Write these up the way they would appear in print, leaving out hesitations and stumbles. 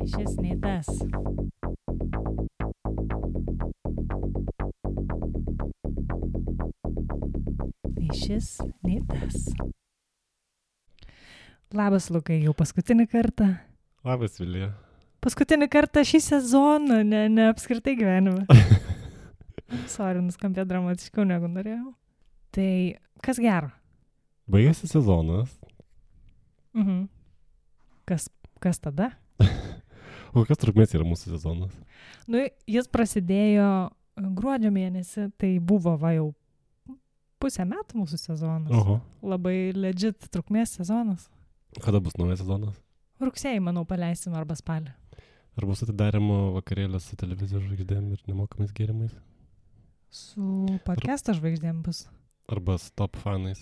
Šis nei tas. Nei šis, nei tas. Labas, Lukai, jau paskutinį kartą. Labas, Vilija. Paskutinį kartą šį sezoną, ne apskritai gyvenime. Sorry, nuskambė dramatiškiau negu norėjau. Tai kas gero? Baigėsi sezonas. Kas tada? O kokios trukmės yra mūsų sezonas? Nu, jis prasidėjo gruodžio mėnesį, tai buvo jau pusę metų mūsų sezonas. Oho. Labai legit trukmės sezonas. Kada bus naujas sezonas? Rugsėjį, manau, paleisim arba spalį. Ar bus atidarimo vakarėlės su televizijos žvaigždėm ir nemokamais gėrimais? Su podcast'o žvaigždėm bus. Arba su top fanais?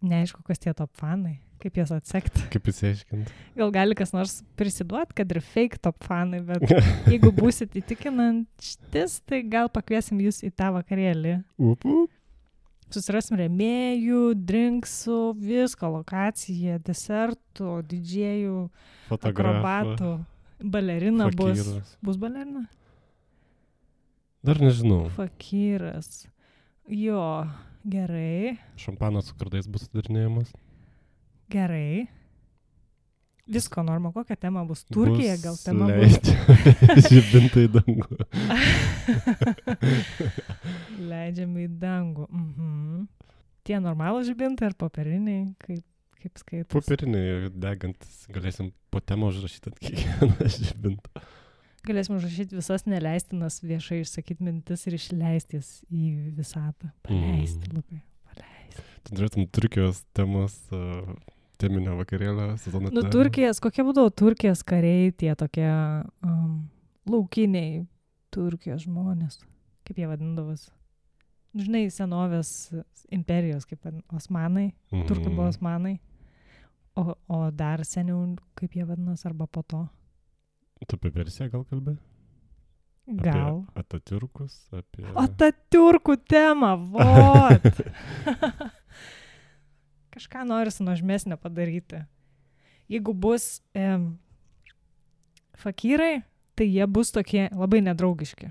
Neaišku, kas tie top fanai, kaip jas atsekti. Kaip įsiaiškinti? Gal gali kas nors prisiduot, kad ir fake top fanai, bet jeigu būsit įtikinantis, tai gal pakviesim jūs į tą vakarėlį. Susirasim rėmėjų, drinksų, visko, lokaciją, desertų, didžėjų, akrobatų, balerina bus. Bus balerina? Dar nežinau. Fakyras. Jo, gerai. Šampanas su kardais bus atidarinėjamas. Gerai. Visko norma, kokia tema bus? Turkija gal tema bus? Žibintai į dangų. Leidžiame į dangų. Tie normalų žibintai ar popieriniai? Kaip skaitos? Popieriniai degantis. Galėsim po temą užrašyti ant kiekvieną žibintą. Galėsim užrašyti visas neleistinas viešai išsakyti mintis ir išleisti jas į visatą. Paleisti, Lukai. Paleisti. Tu norėtum Turkijos temos teminio vakarėlio sezoną. Nu, Turkijos, kokie būdavo Turkijos kariai, tie tokie laukiniai Turkijos žmonės. Kaip jie vadindavos? Žinai, senovės imperijos, kaip Osmanai. Turkai buvo Osmanai. O dar seniau, kaip jie vadinas, arba po to. Tu apie Persiją gal kalbė? Gal. Apie Atatiurkus, apie... Atatiurkų tema, vot! Kažką norisi nuožmesnio padaryti. Jeigu bus fakyrai, tai jie bus tokie labai nedraugiški.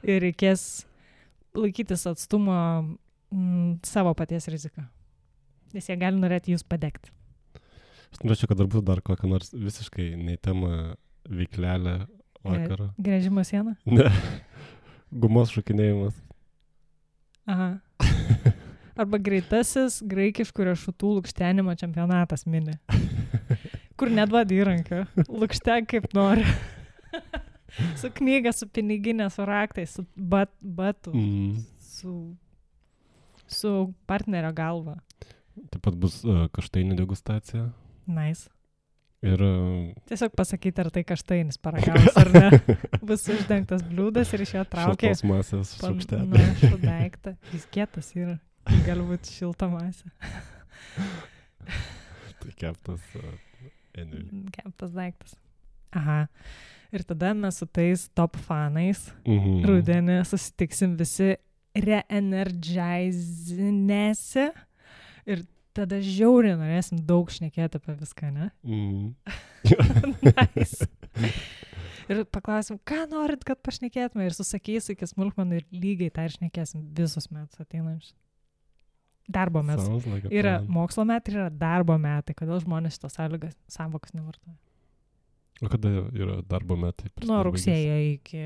Ir reikės laikytis atstumo savo paties riziką. Nes jie gali norėti jūs padegti. Aš norėčiau, kad dar būtų dar kokią nors visiškai nei temą veiklelę vakarą. Gręžimo sieną? Ne. Gumos šokinėjimas. Aha. Arba greitasis graikiškų riešutų lukštenimo čempionatas mini. Kur neduodi įrankio. Lukštek kaip nori. Su knyga, su piniginė, su raktais, su batu, su partnerio galva. Taip pat bus kaštainių degustacija. Nice. Ir... Tiesiog pasakyti, ar tai kaštainis paragavus, ar ne. Bus uždengtas bliūdas ir iš jo traukia. Šiltos masės šaukštelį. Panašų daiktą. Jis kietas yra. Gali būti šilta masė. Tai keptas... Keptas daiktas. Aha. Ir tada mes su tais top fanais rudenį susitiksim visi reenergizinėse ir tada žiauriai norėsim daug šnekėti apie viską, ne? Nice. Ir paklausim, ką norit, kad pašnekėtume ir susakys iki smulkmenų ir lygiai tą ir šnekėsim visus metus ateinančius. Darbo metus. Yra mokslo metai, yra darbo metai. Kodėl žmonės šitos sąvokas nevartoja? O kada yra darbo metai? Nuo rugsėjo iki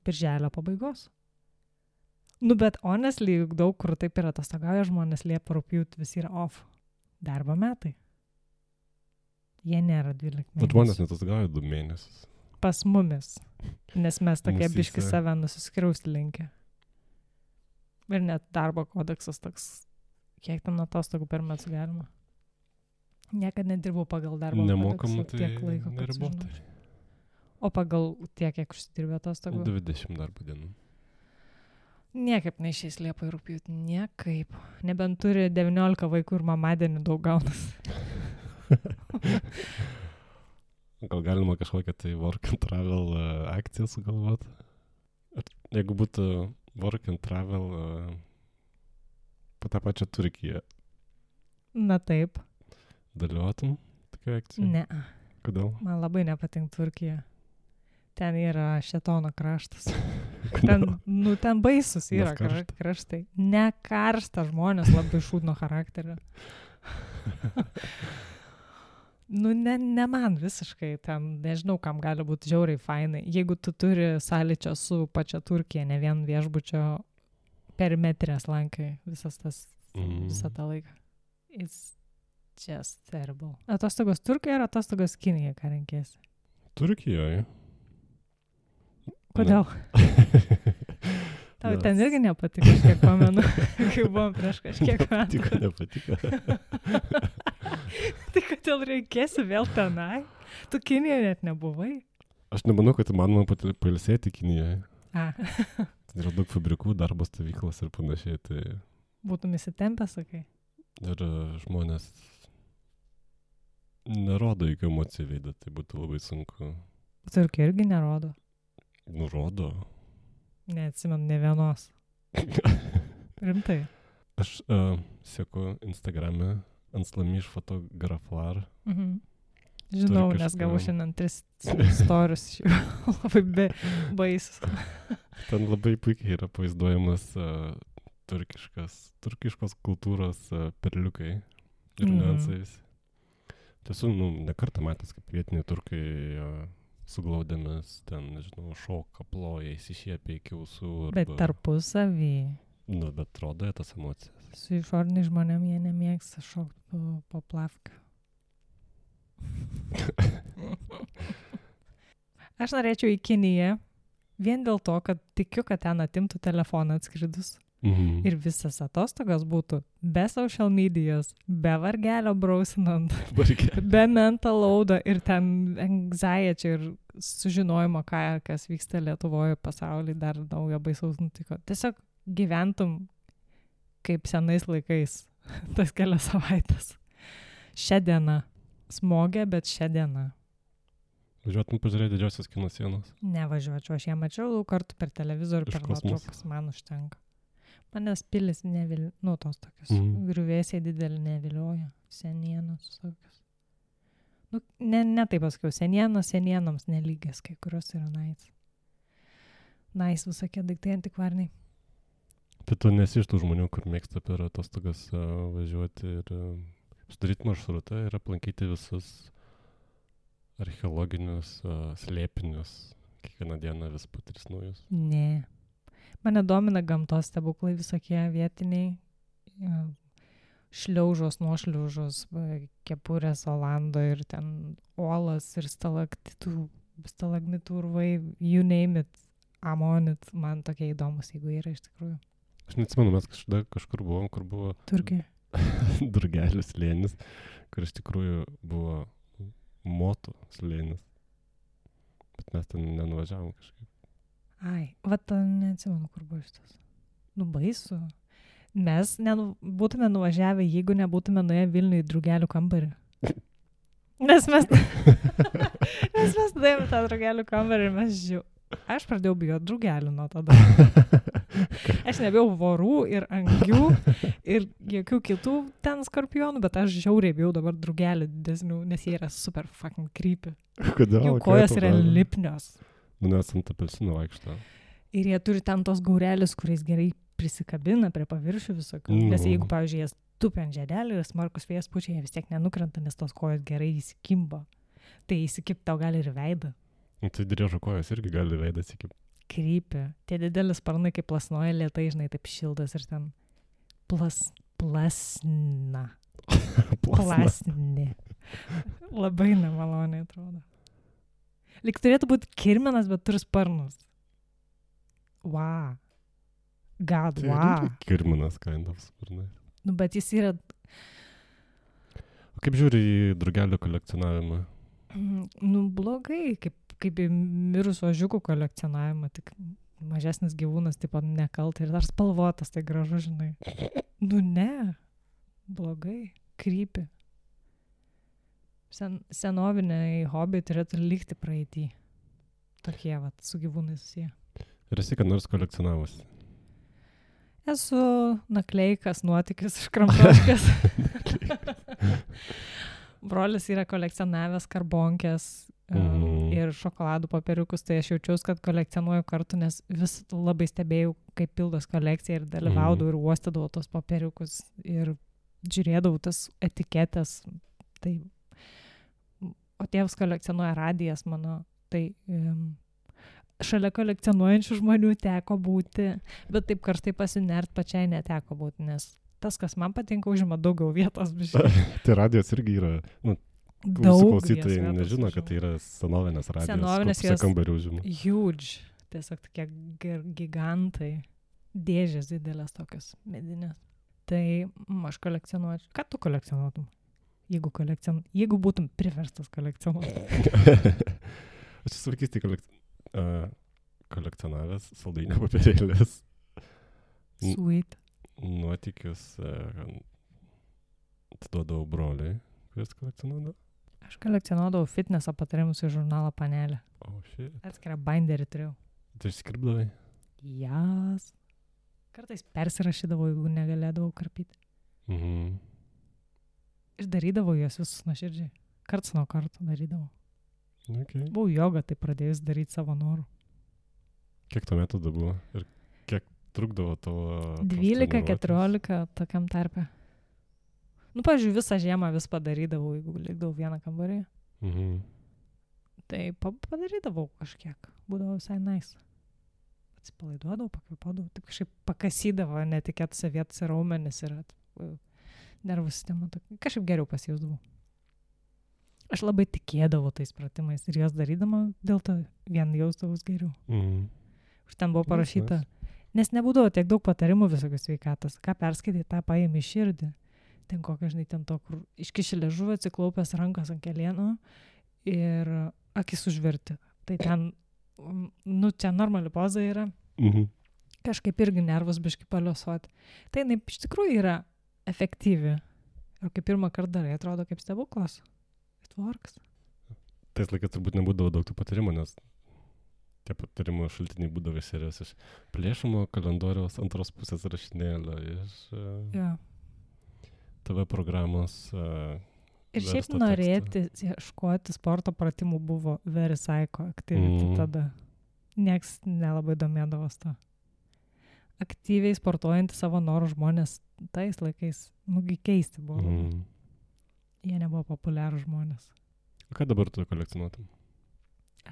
birželio pabaigos. Nu, bet honestly, daug kur taip yra atostogauja žmonės, Liepa, rugpjūtį visi yra off. Darbo metai. Jie nėra 12 mėnesių. Bet žmonės netostogauja 2 mėnesius. Pas mumis. Nes mes tokie biški save nusiskriausti linkę. Ir net darbo kodeksas toks, kiek ten atostogų per metus galima. Niekad nedirbau pagal darbo nemokamų, kodeksą tiek laiko. Neribotai. O pagal tiek, kiek užsidirbė atostogų? 20 darbo dienų. Niekaip neišeis Liepa ir rugpjūtį. Niekaip. Nebent turi 19 vaikų ir mamadienį daug gaunas. Gal galima kažkokią tai work and travel akciją sugalvoti? Jeigu būtų work and travel po tą pačią Turkiją. Na taip. Dalyvautum tokia akcija? Ne. Kodėl? Man labai nepatinka Turkija. Ten yra šėtono kraštas. Kodėl? Ten baisus yra Nes karšta. kraštai. Ne karšta, žmonės labai šūdno charakterio. Ne man visiškai, ten nežinau, kam gali būti žiauriai fainai. Jeigu tu turi sąlyčio su pačia Turkija, ne vien viešbučio perimetrės lankai visą tą laiką. It's just terrible. Atostogos Turkijoje ar atostogos Kinijoje, ką renkėsi? Turkijoje. Kodėl? Tau ten irgi nepatiko, aš kiek pamenu, kai buvom prieš kažkiek metų. Nepatiko. Tai kodėl reikėsi vėl tenai? Tu Kinijoje net nebuvai? Aš nemanau, kad įmanoma pailsėti Kinijoje. Ten yra daug fabrikų, darbo stovyklos ir panašiai. Tai... Būtum įsitempę, sakai? Ir žmonės nerodo jokių emocijų veidą, tai būtų labai sunku. Turkija irgi nerodo. Nurodo. Neatsimenu ne vienos. Rimtai. Aš seku Instagrame Anslamiš fotografar. Žinau, nes gavau šiandien 3 storius iš jų. Labai baisus. Ten labai puikiai yra pavaizduojamas turkiškos kultūros perliukai ir niuansais. Tiesų, ne kartą matęs, kaip vietiniai turkai suglaudėmis, ten, nežinau, šoka, ploja, įsišiepia iki ausų. Bet tarpusavį. Bet rodo tas emocijas. Su išoriniais žmonėm jie nemėgsta šokti po plavką. Aš norėčiau į Kiniją vien dėl to, kad tikiu, kad ten atimtų telefoną atskridus. Ir visas atostogas būtų be social medijos, be vargelio brausinant, be mental loado ir ten anxiety ir sužinojimo, kas vyksta Lietuvoje, pasaulyje, dar naujo baisaus nutiko. Tiesiog gyventum kaip senais laikais, tas kelias savaitės. Šią dieną. Smogė, bet šią dieną. Važiuotum pažiūrėti didžiosios kino sienos? Nevažiuočiau, aš ją mačiau daug kartų per televizorių, per nuotraukas, man užtenka. Manęs pilis nevilioja, tos tokios griuvėsiai didelį nevilioja, senienos tokios. Ne taip pasakiau, senienoms nelygias, kai kurios yra nice visokie daiktai antikvariniai. Tai tu nesi iš tų žmonių, kur mėgsta per atostogas važiuoti ir sudaryti maršrutą ir aplankyti visus archeologinius slėpinius, kiekvieną dieną vis po 3 naujus? Ne. Mane domina gamtos stebuklai visokie vietiniai, šliaužos, nuošliaužos, kepurės Olando ir ten uolas ir stalagmitų urvai, you name it, amonit, man tokie įdomus, jeigu yra iš tikrųjų. Aš neatsimenu, mes kažkur buvom, kur buvo Turkija. Durgelių slėnis, kur iš tikrųjų buvo motų slėnis, bet mes ten nenuvažiavom kažkaip. Ai, neatsimenu, kur buvo šitas. Baisu. Mes būtume nuvažiavę, jeigu nebūtume nuėję Vilniuje į drugelių kambarį. Nes mes nuėjome tą drugelių kambarį ir aš pradėjau bijoti drugelių nuo tada. Aš nebijau vorų ir angių ir jokių kitų ten skorpionų, bet aš žiauriai bijau dabar drugelių didesnių, nes jie yra super fucking creepy. Kodėl? Jų kojos yra lipnios. Nes ant apelsino vaikšto. Ir jie turi ten tos gaurelius, kuriais gerai prisikabina prie paviršių visokių. Nes jeigu, pavyzdžiui, jie tupi ant žiedelį ir smarkus vėjas pučia, jie vis tiek nenukrenta, nes tos kojos gerai įsikimba. Tai įsikipti tau gali ir veidą. Tai driežo kojos irgi gali veidą įsikipti. Krypia. Tie didelis sparnai kaip plasnoja lėtai, žinai, taip šildas ir ten plasna. Plasni. Labai nemaloniai atrodo. Lyg turėtų būti kirminas, bet turi sparnus. Wow. God, wow. Tai kirminas, kind of sparnai. Bet jis yra... O kaip žiūri į drugelių kolekcionavimą? Blogai, kaip į mirusio ožiukų kolekcionavimą, tik mažesnis gyvūnas, taip pat nekaltai ir dar spalvotas, tai gražu, žinai. Ne. Blogai. Krypi. Senoviniai hobiai turėtų likti praeitį. Tokie, su gyvūnais susiję. Ir esi, kad nors kolekcionavosi? Esu nakleikas, nuotykis, škramtoškas. Brolis yra kolekcionavęs karbonkės ir šokoladų popieriukus, tai aš jaučiausi, kad kolekcionuoju kartu, nes vis labai stebėjau, kaip pildos kolekcija ir dalyvaudavau ir uostydavau tos popieriukus ir žiūrėdavau tas etiketės. Tai, o tėvas kolekcionuoja radijas mano, tai šalia kolekcionuojančių žmonių teko būti, bet taip karštai pasinert pačiai neteko būti, nes tas, kas man patinka, užima daugiau vietos. Tai radijas irgi yra, klausytojai nežino, kad tai yra senovinės radijas. Senovinės jos kambarių užima. Huge, tiesiog tokie gigantai, dėžės didelės tokios medinės. Tai aš kolekcionuočiau. Ką tu kolekcionuotum? Jeigu būtum priverstas kolekcionuoti. Aš esu vaikystėj kolekcionavęs saldainio papirėlės. Sweet. Nuotykius atiduodavau broliui, kuris kolekcionuodavo. Aš kolekcionuodavau fitneso patarimus į žurnalą Panelė. Shit. Atskirą binderį turėjau. Tai išskirpdavai? Jas. Kartais persirašydavau, jeigu negalėdavau karpyti. Išdarydavau juos visus nuoširdžiai. Karts nuo karto darydavau. Okay. Buvau jogą, tai pradėjus daryti savo norų. Kiek tuo metu buvo? Ir kiek trukdavo tavo... 12-14 tokiam tarpe. Pavyzdžiui, visą žiemą vis padarydavau, jeigu likdavau vieną kambarį. Tai padarydavau kažkiek. Būdavo visai nice. Atsipalaiduodavau, pakvėpuodavau, taip kažkaip pakasydavo netikėtose vietose raumenis ir nervų sistema. Kažkaip geriau pasijausdavau. Aš labai tikėdavau tais pratimais ir jos darydama, dėl to vien jausdavus geriau. Už ten buvo parašyta, nes nebūdavo tiek daug patarimų visokios sveikatos. Ką perskaitai, tą paėmė širdį. Ten kokia, žinai, ten to, kur iškiši liežuvį, atsiklaupęs rankas ant kelienų ir akis užverti. Tai ten, čia normali poza yra. Kažkaip irgi nervus biškai paliuosuoti. Tai jinai iš tikrųjų yra efektyvi. Ir kai pirmą kartą darai, atrodo kaip stebuklas. It works. Tais laikais turbūt nebūdavo daug tų patarimų, nes tie patarimų šaltiniai būdavo serijos iš plėšimo kalendoriaus antros pusės rašinėlio, iš TV programos. Ir šiaip norėti ieškoti sporto pratimų buvo very psycho activity tada. Nieks nelabai domėdavos to. Aktyviai sportuojantį savo norų žmonės tais laikais, keisti buvo. Jie nebuvo populiarų žmonės. O ką dabar tu kolekcionuotum?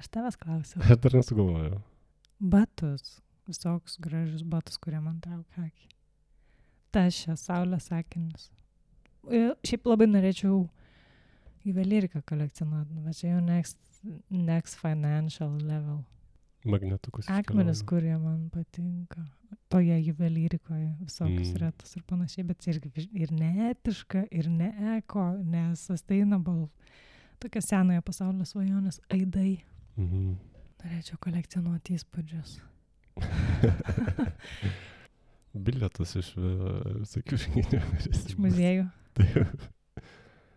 Aš tavęs klausiau. Aš dar nesugalvojau. Batus. Visokius gražius batus, kurie man traukia akį. Tašę, saulės akinius. Šiaip labai norėčiau juvelyriką kolekcionuoti, bet čia jau next financial level. Magnetukus. Akmenis, kurie man patinka. Toje juvelyrikoje visokius retus ir panašiai, bet irgi ir neetiška, ir ne eko, ne sustainable. Tokia senojo pasaulio svajonės aidai. Norėčiau kolekcionuoti įspūdžius. Bilietus iš visokių žinių. Iš muziejų.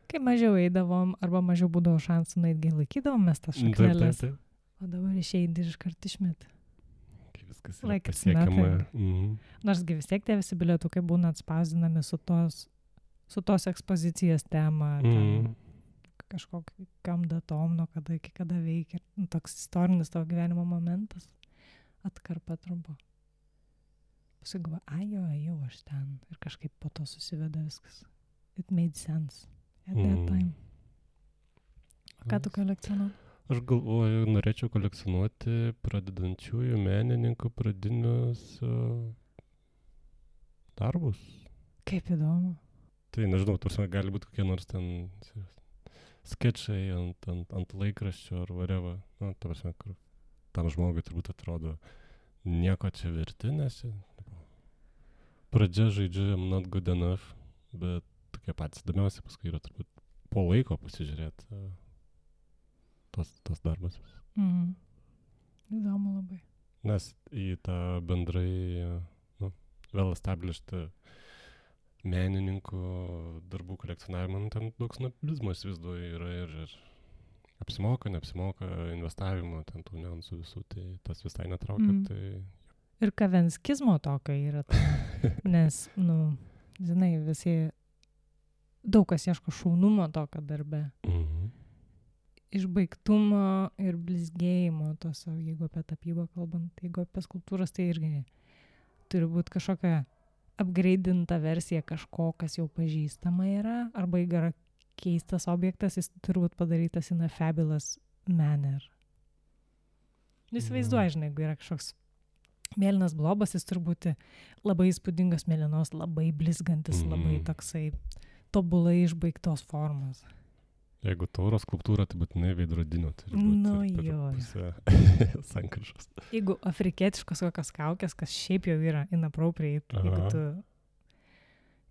Kai mažiau eidavom, arba mažiau būdavo šansų, naitgi laikydavom mes tas šakneles. O dabar išeidi ir iškart išmet. Kai viskas yra pasiekiama. Norsgi vis tiek tie visi bilietukai būna atspausdinami su tos ekspozicijos tema, kažkokiam datom, nuo kada iki kada veikia. Toks istorinis tavo gyvenimo momentas. Atkarpa trumpo. Pasigavo, jau aš ten. Ir kažkaip po to susiveda viskas. It made sense at that time. Ką tu kolekcionuoji? Aš galvoju, norėčiau kolekcionuoti pradedančiųjų menininkų pradinius darbus. Kaip įdomu. Tai nežinau, gali būti kokie nors ten skečai ant laikraščio ar whatever. Ta prasme, kur tam žmogui turbūt atrodo nieko čia verti, nes pradžia žaidžiu I'm not good enough, bet tokie patys įdomiausi paskui yra turbūt po laiko pasižiūrėti tos darbas. Įdomu labai. Nes į tą bendrai well established menininkų darbų kolekcionavimą, ten daug snobizmo įsivaizduoju yra ir apsimoka, neapsimoka investavimo, ten tų niuansų visų, tai tas visai netraukia. Tai... Ir kavenskizmo tokio yra, nes, žinai, visi daug kas ieško šaunumo tokio darbe. Išbaigtumo ir blizgėjimo tos, jeigu apie tapybą kalbant, jeigu apie skulptūras, tai irgi turi būti kažkokia upgrade'inta versija kažko, kas jau pažįstama yra, arba jeigu yra keistas objektas, jis turi būti padarytas in a fabulous manner. Jis vaizduoja, žinai, jeigu yra kažkoks mėlynas blobas, jis turi būti labai įspūdingas mėlynos, labai blizgantis, labai toksai tobulai išbaigtos formos. Jeigu tauros skulptūra, tai būtinai veidrodinio turi būti. Nu jo. Pusė sankryžos. Jeigu afrikietiškos kokios kaukės, kas šiaip jau yra inappropriate, jeigu tu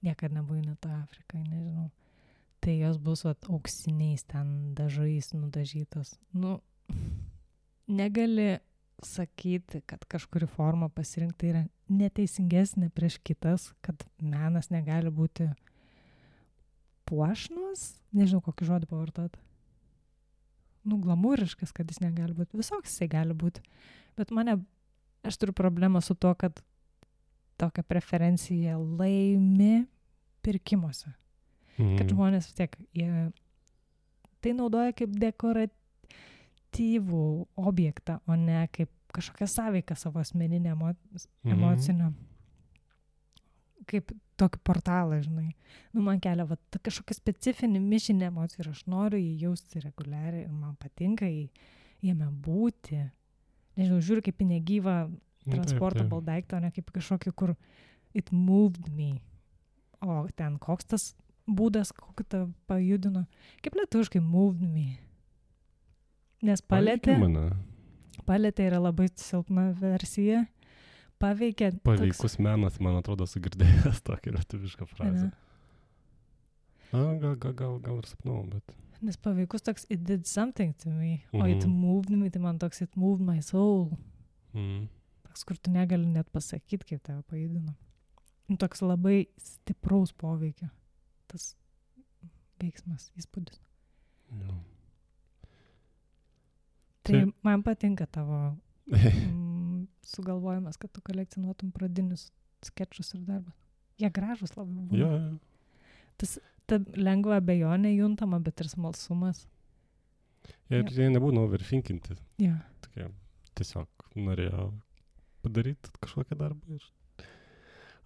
niekad nebuvai net Afrikai, nežinau, tai jos bus auksiniais ten dažais nudažytos. Nu, negali sakyti, kad kažkuri forma pasirinkti yra neteisingesnė prieš kitas, kad menas negali būti puošnus, nežinau, kokį žodį pavartot. Nu, glamūriškas, kad jis negali būti. Visoks jisai gali būti. Bet aš turiu problemą su to, kad tokią preferenciją laimi pirkimuose. Kad žmonės vis tiek, jie tai naudoja kaip dekoratyvų objektą, o ne kaip kažkokią sąveiką savo asmeninę emocinę. Kaip tokį portalą, žinai. Nu, man kelia kažkokią specifinį mišinį emocijų ir aš noriu jį jausti reguliariai ir man patinka jame būti. Nežinau, žiūriu kaip į negyvą transportable daiktą, o ne kaip kažkokį, kur it moved me. O ten koks tas būdas, kokį tą pajudino. Kaip lietuviškai moved me. Nes paletė yra labai silpna versija. Paveikus menas, man atrodo, sugirdėjęs tokį lietuvišką frazę. Gal ir sapnau, bet... Nes paveikus toks, it did something to me, o it moved me, tai man toks, it moved my soul. Toks, kur tu negali net pasakyti, kaip tave pajudino. Toks labai stipraus poveikio. Tas veiksmas, įspūdis. Tai man patinka tavo... sugalvojimas, kad tu kolekcionuotum pradinius skečus ir darbą. Jie gražus labai buvo. Jo. Ta lengva abejonė juntama, bet ir smalsumas. Ir jie nebūna overthinkinti. Jo. Tokie, tiesiog norėjo padaryti kažkokią darbą ir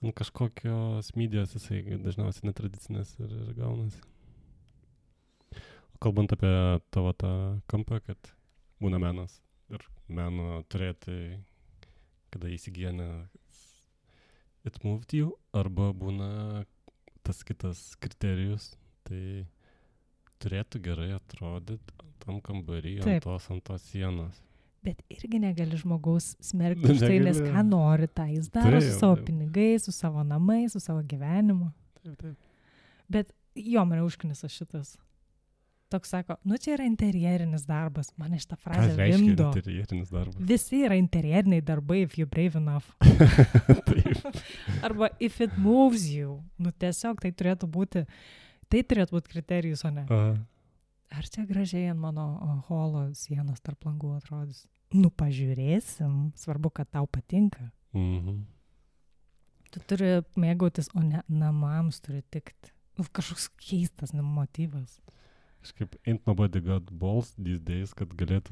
ant kažkokios medijos jisai dažniausiai netradicinės ir gaunasi. O kalbant apie tavo tą kampą, kad būna menas ir meno turėti, kada įsigyjane it moved you, arba būna tas kitas kriterijus, tai turėtų gerai atrodyti tam kambarį, ant tos sienos. Bet irgi negali žmogaus smerkti už tai, nes ką nori, tą jis daro su savo pinigais, su savo namais, su savo gyvenimu. Taip. Bet jo, mane užknisa šitas. Toks sako, nu čia yra interjerinis darbas. Mane šitą frazę vimdo. Interjerinis darbas? Visi yra interjeriniai darbai, if you're brave enough. Arba if it moves you. Nu tiesiog tai turėtų būti kriterijus, o ne. Ar čia gražiai ant mano holo sienos tarp langų atrodys? Nu pažiūrėsim. Svarbu, kad tau patinka. Tu turi mėgautis, o ne namams turi tikti. Kažkoks keistas motyvas. Kažkaip ain't nobody got balls these days, kad galėtų,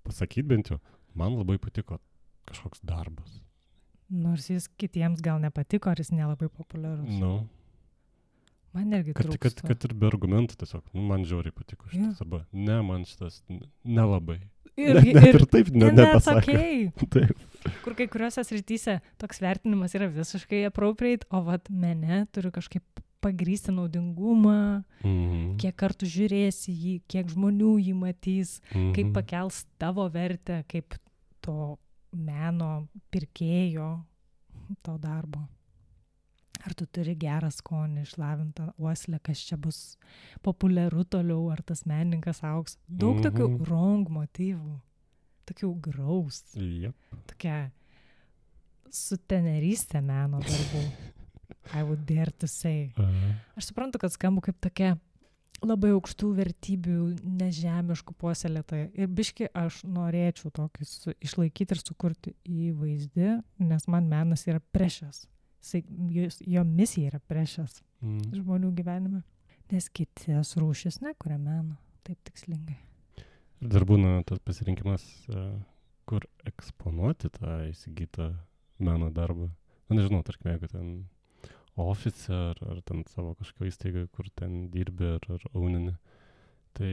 pasakyti bent jau, man labai patiko kažkoks darbas. Nors jis kitiems gal nepatiko, ar jis nelabai populiarus. Man irgi trūksta. Kad ir be argumentų tiesiog, man žiauriai patiko šitas, arba ne, man šitas nelabai. Ir taip nepasakė. Taip. Kur kai kuriuose srityse toks vertinimas yra visiškai appropriate, o mene turiu kažkaip pagrysti naudingumą, kiek kartų žiūrėsi jį, kiek žmonių jį matys, kaip pakels tavo vertę, kaip to meno pirkėjo, to darbo. Ar tu turi gerą skonį, išlavintą uoslę, kas čia bus populiaru toliau, ar tas menininkas augs. Daug tokių wrong motyvų, tokių graus, tokia sutenerystė meno darbų. I would dare to say. Aš suprantu, kad skambu kaip tokia labai aukštų vertybių, nežemiškų puoselėtoja. Ir biški aš norėčiau tokį išlaikyti ir sukurti įvaizdį, nes man menas yra precious. Jo misija yra precious žmonių gyvenime. Nes kitas rūšis nekuria meno, taip tikslingai. Ir dar būna tas pasirinkimas, kur eksponuoti tą įsigytą meno darbą. Na, nežinau, tarkim, jeigu ten ofise ar ten savo kažkokio įstaigai, kur ten dirbi ar aunini, tai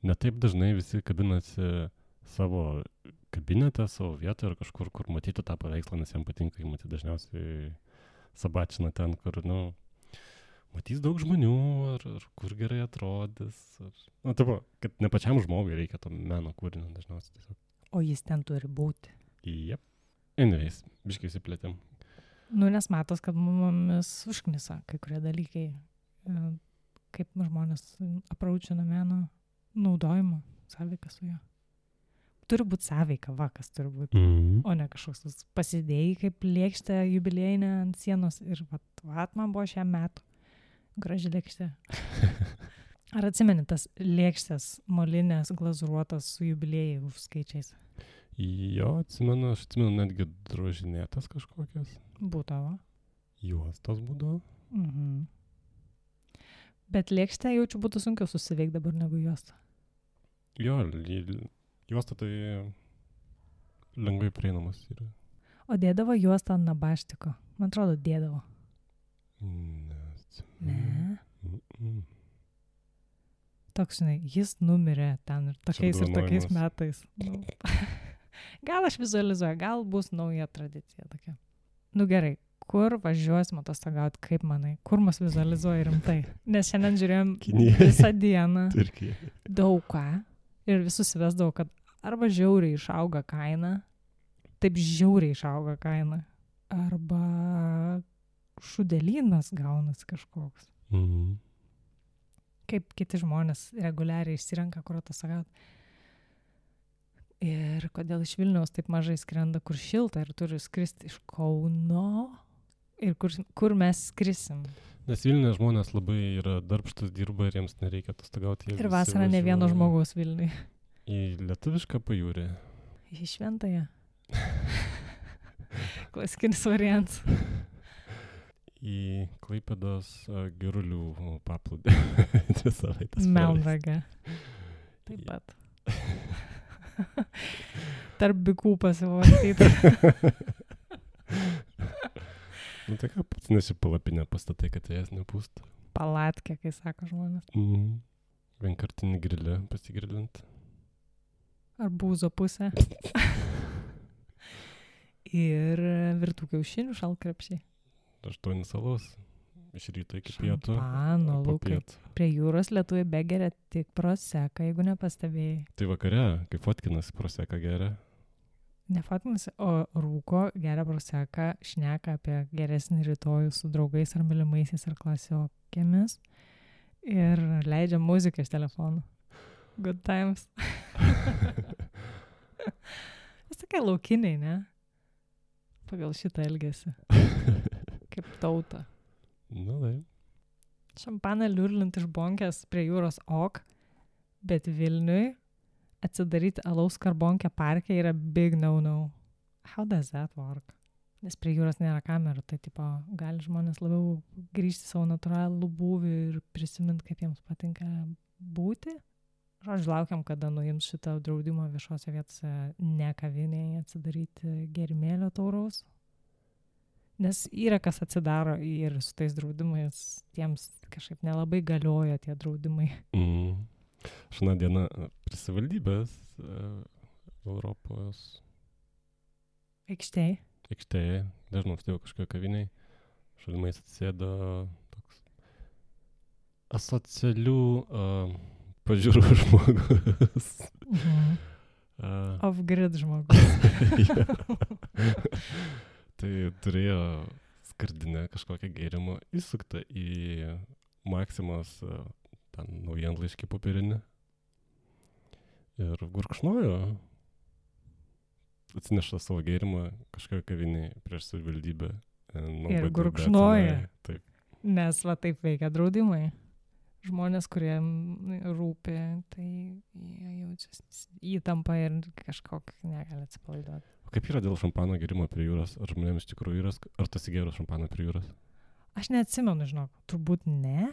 netaip dažnai visi kabinasi savo kabinete, savo vietoje ar kažkur, kur matyti tą paveikslą, nes jam patinka, jį matyti dažniausiai sabačina ten, kur, matys daug žmonių, ar kur gerai atrodys. Taip, kad ne pačiam žmogui reikia to meno kūrinio dažniausiai tiesiog. O jis ten turi būti. Jep. Anyways, biškai įsiplėtėm. Nes matos, kad mumis užknisa kai kurie dalykai, kaip žmonės apraučina meno naudojimo, sąveiką su juo. Turi būti sąveika, kas turi būti, o ne kažkoks pasidėjai kaip lėkštė jubiliejinė ant sienos ir vat man buvo šiam metu. Graži lėkštė. Ar atsimeni tas lėkštės molinės glazūruotas su jubiliejai skaičiais? Jo, atsimenu, aš atsimenu netgi drožinėtas kažkokias. Būdavo. Juostos būdavo. Bet lėkštę jaučiu būtų sunkiau susiveikti dabar negu juostą. Jo, juosta tai lengvai prieinamas yra. O dėdavo juostą ant nabaštiko? Man atrodo, dėdavo. Ne. Toks, jis numirė ten ir tokiais metais. Gal aš vizualizuoju, gal bus nauja tradicija tokia. Gerai, kur važiuosim atostogauti, kaip manai? Kur mus vizualizuoja rimtai? Nes šiandien žiūrėjom visą dieną daug ką ir visus vesdavo, kad arba žiauriai išauga kaina, taip žiauriai išauga kaina, arba šudelynas gaunasi kažkoks. Kaip kiti žmonės reguliariai išsirenka, kur atostogauti. Ir kodėl iš Vilniaus taip mažai skrenda, kur šilta ir turi skristi iš Kauno ir kur mes skrisim. Nes Vilniuje žmonės labai yra darbštus, dirba ir jiems nereikia atostogauti. Ir vasarą ne vieno žmogaus Vilniuje. Į lietuvišką pajūrį. Į šventąją. Klasikinis variantas. Į Klaipėdos Girulių paplūdį. Melnragę. Taip pat. Tarp bikų pasivartyti. Tai ką pats nesipalapinę pastatai, kad jas nepūstų. Palatkę, kai sako žmonės. Vienkartinį grilę pasigrilint. Arbūzo pusę. Ir virtų kiaušinių šalkrepšiai. 8 salos. Iš ryto iki pietų. Šampano, Lukai. Prie jūros lietuviai begeria tik proseką, jeigu nepastebėjai. Tai vakare, kai fotkinasi proseką geria. Ne fotkinasi, o rūko, geria proseką, šneka apie geresnį rytojų su draugais ar mylimaisiais ar klasiokėmis ir leidžia muziką iš telefonų. Good times. Vis tokie laukiniai, ne? Pagal šitą elgesį. Kaip tauta. Tai. Šampaną liurlint iš bonkės prie jūros bet Vilniui atsidaryti alaus karbonkę parke yra big no-no. How does that work? Nes prie jūros nėra kamerų, tai gali žmonės labiau grįžti savo natūralų būvį ir prisiminti, kaip jiems patinka būti. Žodžiu, laukiam, kada nuims šitą draudimą viešose vietose ne kavinėje atsidaryti gėrimėlio tauraus. Nes yra kas atsidaro ir su tais draudimais, tiems kažkaip nelabai galioja tie draudimai. Aš vieną dieną prie savivaldybės Europos aikštėje, dažnai stovėjau kažkokio kaviniai, šalimais atsėdo toks asocialių pažiūrų žmogus. Off-grid žmogus. Tai turėjo skardinę kažkokią gėrimą įsuktą į Maksimos naujienlaiškį popierinį ir gurkšnojo. Atsineša savo gėrimą kažkokią kavinį prieš savivaldybę. Ir gurkšnoja. Taip. Nes taip veikia draudimai. Žmonės, kurie rūpi, tai jie jaučiasi įtampa ir kažkokį negali atsipalaiduoti. Kaip yra dėl šampano gėrimo prie jūros? Ar žmonėms iš tikrųjų yra? Ar tu sigėrus šampaną prie jūros? Aš neatsimenu, žinok. Turbūt ne.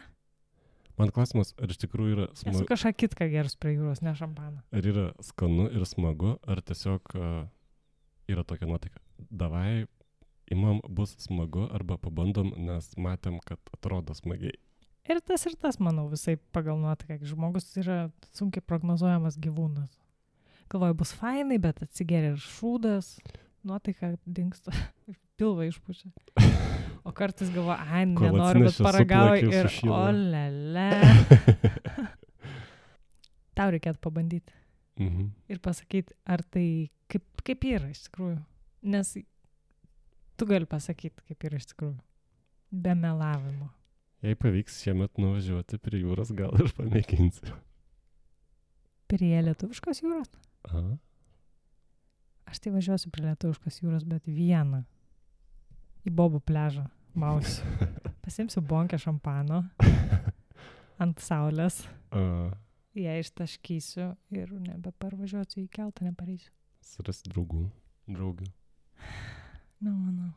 Man klausimas, ar iš tikrųjų yra Esu smagu, kažką kitką gerus prie jūros, ne šampaną. ar yra skanu ir smagu, ar tiesiog yra tokia nuotaika. Davai, imam, bus smagu, arba pabandom, nes matėm, kad atrodo smagiai. Ir tas, manau, visai pagal nuotaiką. Žmogus yra sunkiai prognozuojamas gyvūnas. Galvoju, bus fainai, bet atsigeria ir šūdas, nuotaika dingsta, pilvą išpučia. O kartais galvoju, ai, nenoriu, bet paragauju ir olele. Tau reikėtų pabandyti. Ir pasakyti, ar tai kaip yra iš tikrųjų. Nes tu gali pasakyti, kaip yra iš tikrųjų. Be melavimo. Jei pavyks šiemet nuvažiuoti prie jūros, gal ir pamėginsiu. Prie lietuviškos jūros? Aha. Aš tai važiuosiu prie lietuviškos jūros, bet vieną. Į Bobų pliažą mausiu. Pasimsiu bonkę šampano ant saulės. Ją ištaškysiu ir nebeparvažiuosiu į keltą, nepareisiu. Surasti draugių. Manau.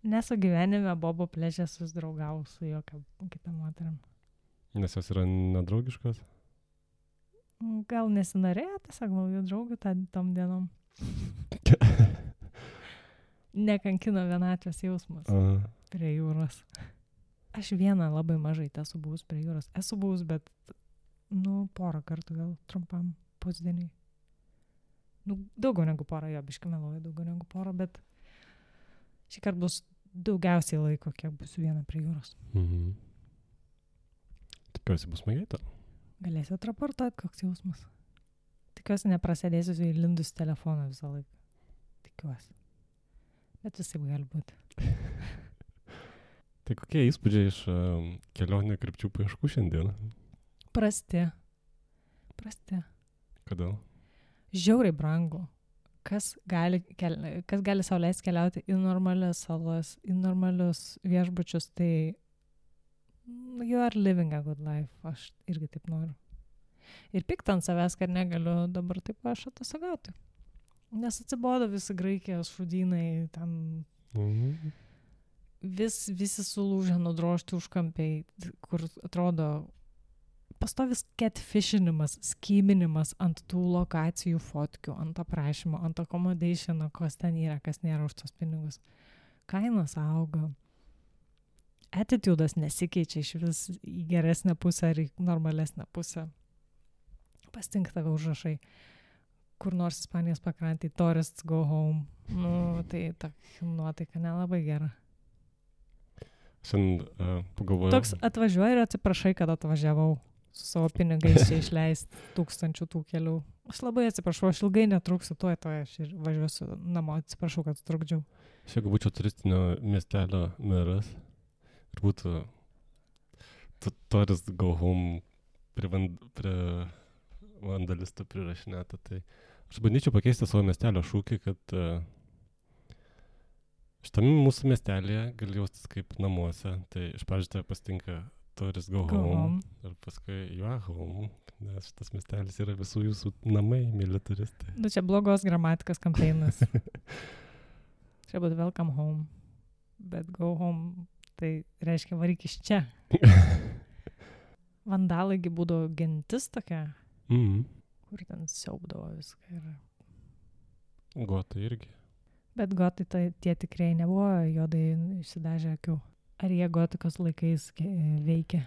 Nesu gyvenime Bobo pliaže susidraugau su jokia kita moterim. Nes jos yra nedraugiškos? Gal nesinorėjo tiesiog naujų draugų tom dienom. Nekankino vienatvės jausmas prie jūros. Aš vieną labai mažai esu buvus prie jūros. Esu buvus, bet, porą kartų gal trumpam pusdieniai. Daugiau negu porą, jo, biškai meluoju, daugiau negu porą, bet šį kartą bus daugiausiai laiko, kiek bus viena prie jūros. Tikiuosi bus smagiai tau. Galėsiu atraportuoti, koks jausmas. Tikiuosi neprasidėsiu įlindus telefoną visą laiką. Tikiuosi. Bet visai gali būti. Tai kokie įspūdžiai iš kelionė krypčių paieškų šiandien? Prasti. Kodėl? Žiauriai brangu. Kas gali sau leisti keliauti į normalias salas, į normalius viešbučius, tai you are living a good life. Aš irgi taip noriu. Ir pikta ant savęs, kad negaliu dabar taip aš atostogauti. Nes atsibodo visi Graikijos šūdynai, ten visi sulūžę, nudrožti užkampiai, kur atrodo pastovis catfishinimas, skyminimas ant tų lokacijų fotkių, ant aprašymo, ant accommodationo, kas ten yra, kas nėra už tos pinigus. Kainos auga. Attitudas nesikeičia iš vis į geresnę pusę ar į normalesnę pusę. Pastink tave užrašai. Kur nors Ispanijos pakrantėj, tourists go home. Tai ta nuotaika nelabai gera. Šiandien pagalvojau. Toks atvažiuoji ir atsiprašai, kad atvažiavau su savo pinigais čia išleisti 1000 tų kelių. Aš labai atsiprašau, aš ilgai netruksiu, tuoj aš ir važiuosiu namo, atsiprašau, kad trukdžiau. Jeigu būčiau turistinio miestelio meras ir būtų tourist go home prie vandalistų prirašinėta, tai aš bandyčiau pakeisti savo miestelio šūkį, kad šitame mūsų miestelėje gali jaustis kaip namuose. Tai iš pradžių tave pasitinka tourist go home ir paskui you are home, nes šitas miestelis yra visų jūsų namai, mėly turistai. Čia blogos gramatikos kampeinas. Čia būtų welcome home, bet go home tai reiškia varyk iš čia. Vandalai būdavo gentis tokia, kur ten siaubdavo viską. Gotai irgi. Bet gotai tie tikrai nebuvo juodai išsidažę akių. Ar jie gotikos laikais veikia?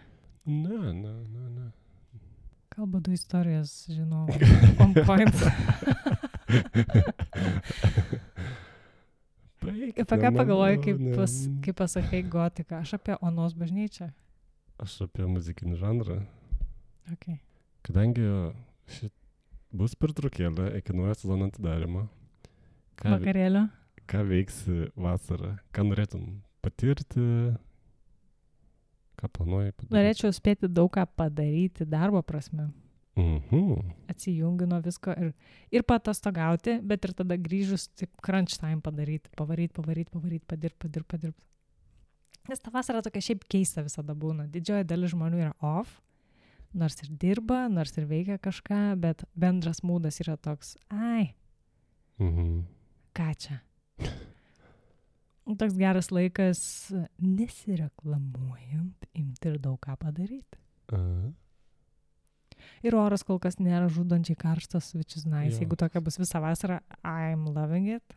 Ne. Kalba 2 istorijas, žinau, on point. Apie ką pagalvoji, kaip pasakai gotiką? Aš apie Onos bažnyčią. Aš apie muzikinį žanrą. Okay. Kadangi bus pertraukėlė iki naujo sezono atidarymo. Vakarėlio? Ką veiksi vasarą? Ką norėtum patirti? Ką planuoji padaryti? Norėčiau spėti daug ką padaryti darbo prasme. Atsijungi nuo visko ir patostogauti, bet ir tada grįžus taip crunch time padaryti. Pavaryt, padirbt. Nes ta vasara tokia šiaip keista visada būna. Didžioji dalis žmonių yra off, nors ir dirba, nors ir veikia kažką, bet bendras mūdas yra toks, ką čia? Toks geras laikas nesireklamuojant, imti ir daug ką padaryti. Ir oras kol kas nėra žudančiai karštas, which is nice. Jo. Jeigu tokia bus visą vasarą, I'm loving it.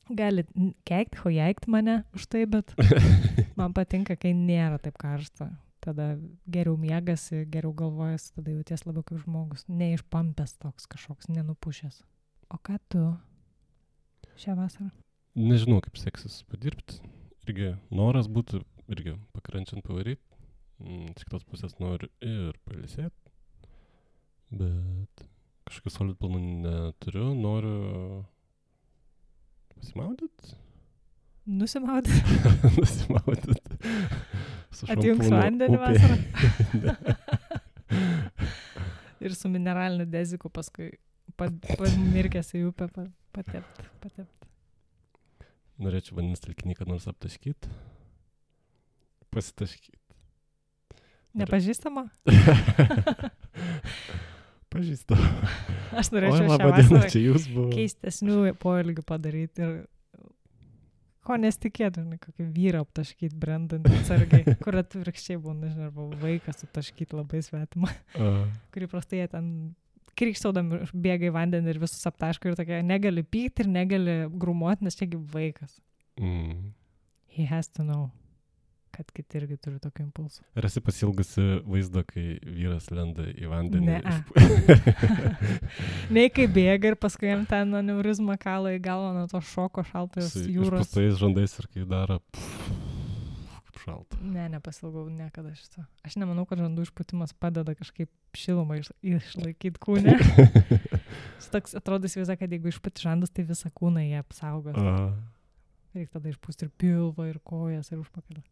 Galit keikti, hojaikti mane už tai, bet man patinka, kai nėra taip karšta. Tada geriau miegasi, geriau galvojasi, tada jauties labiau kaip žmogus. Neišpampęs toks kažkoks, nenupušęs. O ką tu šią vasarą? Nežinau, kaip seksis padirbti. Irgi noras būtų, irgi pakrančiant pavaryti. Iš kitos pusės noriu ir pailsėti. Bet kažkokių solid planų neturiu. Noriu pasimaudyt. Nusimaudyt? Nusimaudyt. Atjungs vandenį vasarą. Ir su mineraliniu deziku paskui pamirkęs į upę patept. Norėčiau vandens telkinį, kad nors aptaškyt. Pasitaškyt. Nepažįstama? Pažįstama. Aš norėčiau šią vasarą keistesnių poelgių padaryti ir ko nesitikėtų, kokį vyrą aptaškyti, brandant atsargiai, kur atvirkščiai būna, nežinau, arba vaikas aptaškyti labai svetimą, kurį prastai jie ten krikštaudami bėga į vandenį ir visus aptaško ir tokia, negali pykti ir negali grumuoti, nes čiagi vaikas. He has to know, kad kiti irgi turi tokį impulsą. Ar esi pasilgusi vaizdo, kai vyras lenda į vandenį? Nei kai bėga ir paskui jam ten aneurizmą kala į galvą nuo to šoko šaltos jūros. Išpustais žandais ir kai daro kaip šalta. Ne, nepasilgau niekada šito. Aš nemanau, kad žandų išpūtimas padeda kažkaip šilumą išlaikyti kūne. Toks atrodo įsivaizduoja, kad jeigu išpūti žandus, tai visą kūną jie apsaugos. Reikia tada išpūsti ir pilvą, ir kojas, ir užpakalį.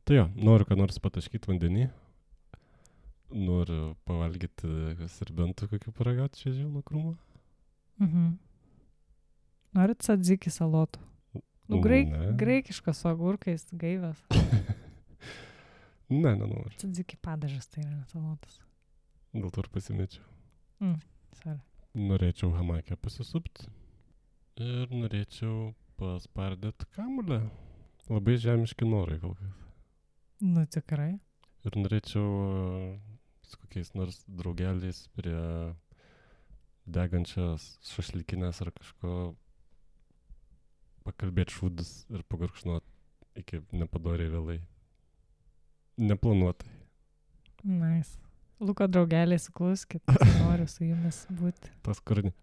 Tai jo, noriu ką nors pataškyti vandenį. Noriu pavalgyti serbentų kokių paragauti šviežių nuo krūmo. Norit tzatziki salotų? Graikiškas su agurkais, gaivas. Ne, nenoriu. Tzatziki padažas tai yra salotas. Dėl to ir pasimečiau. Sorry. Norėčiau hamakę pasisupti. Ir norėčiau paspardyti kamuolę. Labai žemiški norai kol kas. Nu, tikrai. Ir norėčiau su kokiais nors draugeliais prie degančios šašlykinės ar kažko pakalbėti šūdus ir pagurkšnuoti iki nepadoriai vėlai. Neplanuotai. Nice. Luko draugeliai, sukluskit, noriu su jumis būti. Tas kūrinį.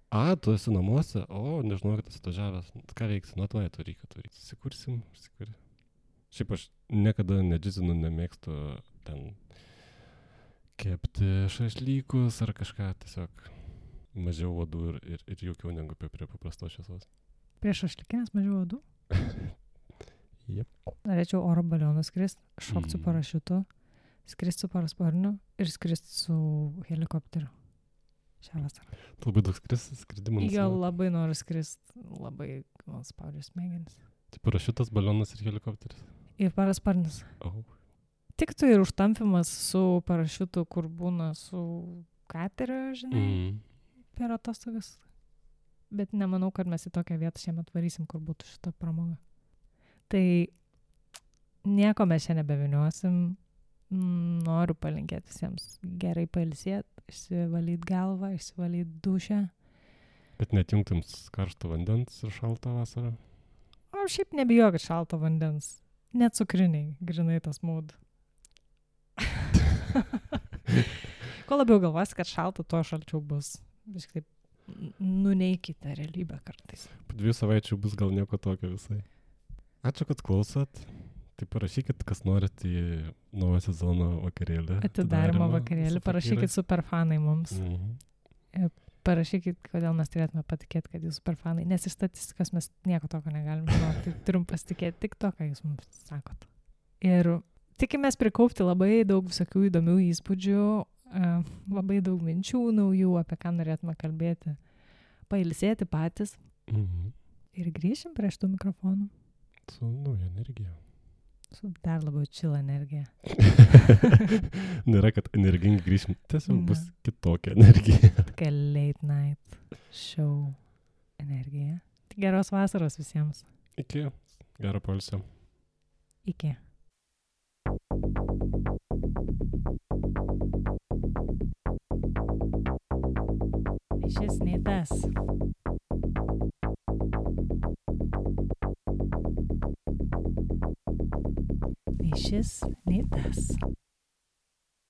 Tu esi namuose? Nežinau, kad esi atvažiavęs. Ką veiksi? Atvaryk. Susikursim. Šiaip aš niekada nedžizinu, nemėgstu ten kepti šašlykus ar kažką, tiesiog mažiau uodų ir jaukiau negu prie paprastos šviesos. Prie šašlykinės mažiau uodų? Jep. Norėčiau oro balionų skristi, šokti su parašiutu, skristi su parasparniu ir skristi su helikopteriu šią vasarą. Tu labai daug skridimų? Jo, labai noriu skristi, labai spaudžiu smegenis. Tai parašiutas, balionas ir helikopteris? Ir parasparnis. Tiktų ir užtampimas su parašiutu, kur būna su kateriu, žinai, per atostogas. Bet nemanau, kad mes į tokią vietą šiemet varysim, kur būtų šita pramoga. Tai nieko mes čia nebeviniuosim. Noriu palinkėti visiems gerai pailsėti, išsivalyti galvą, išsivalyti dušę. Bet netjungtum karšto vandens ir šaltą vasarą? O šiaip nebijokit šalto vandens. Net cukriniai, grinai tas mūd. Kuo labiau galvosi, kad šalta, tuo šalčiau bus. Kažkaip nuneikite realybę kartais. Po 2 savaičių bus gal nieko tokio visai. Ačiū, kad klausot. Tai parašykit, kas norit į naują sezono vakarėlį. Atidarimo vakarėlį. Parašykit superfanai mums. Parašykit, kodėl mes turėtume patikėti, kad jūs superfanai. Nes iš statistikos mes nieko tokio negalime žinoti. Tai turim pasitikėti tik to, ką jūs mums sakot. Ir tikimės prikaupti labai daug visokių įdomių įspūdžių, labai daug minčių naujų, apie ką norėtume kalbėti. Pailsėti patys. Ir grįšim prie šitų mikrofonų. Su nauja energija. Su dar labiau chill energija. Nėra, kad energingai grįšim. Tiesiog bus kitokia energija. Tokia late night show energija. Tai geros vasaros visiems. Iki. Gero poilsio. Iki. šis, nei tas. Nei šis, nei tas.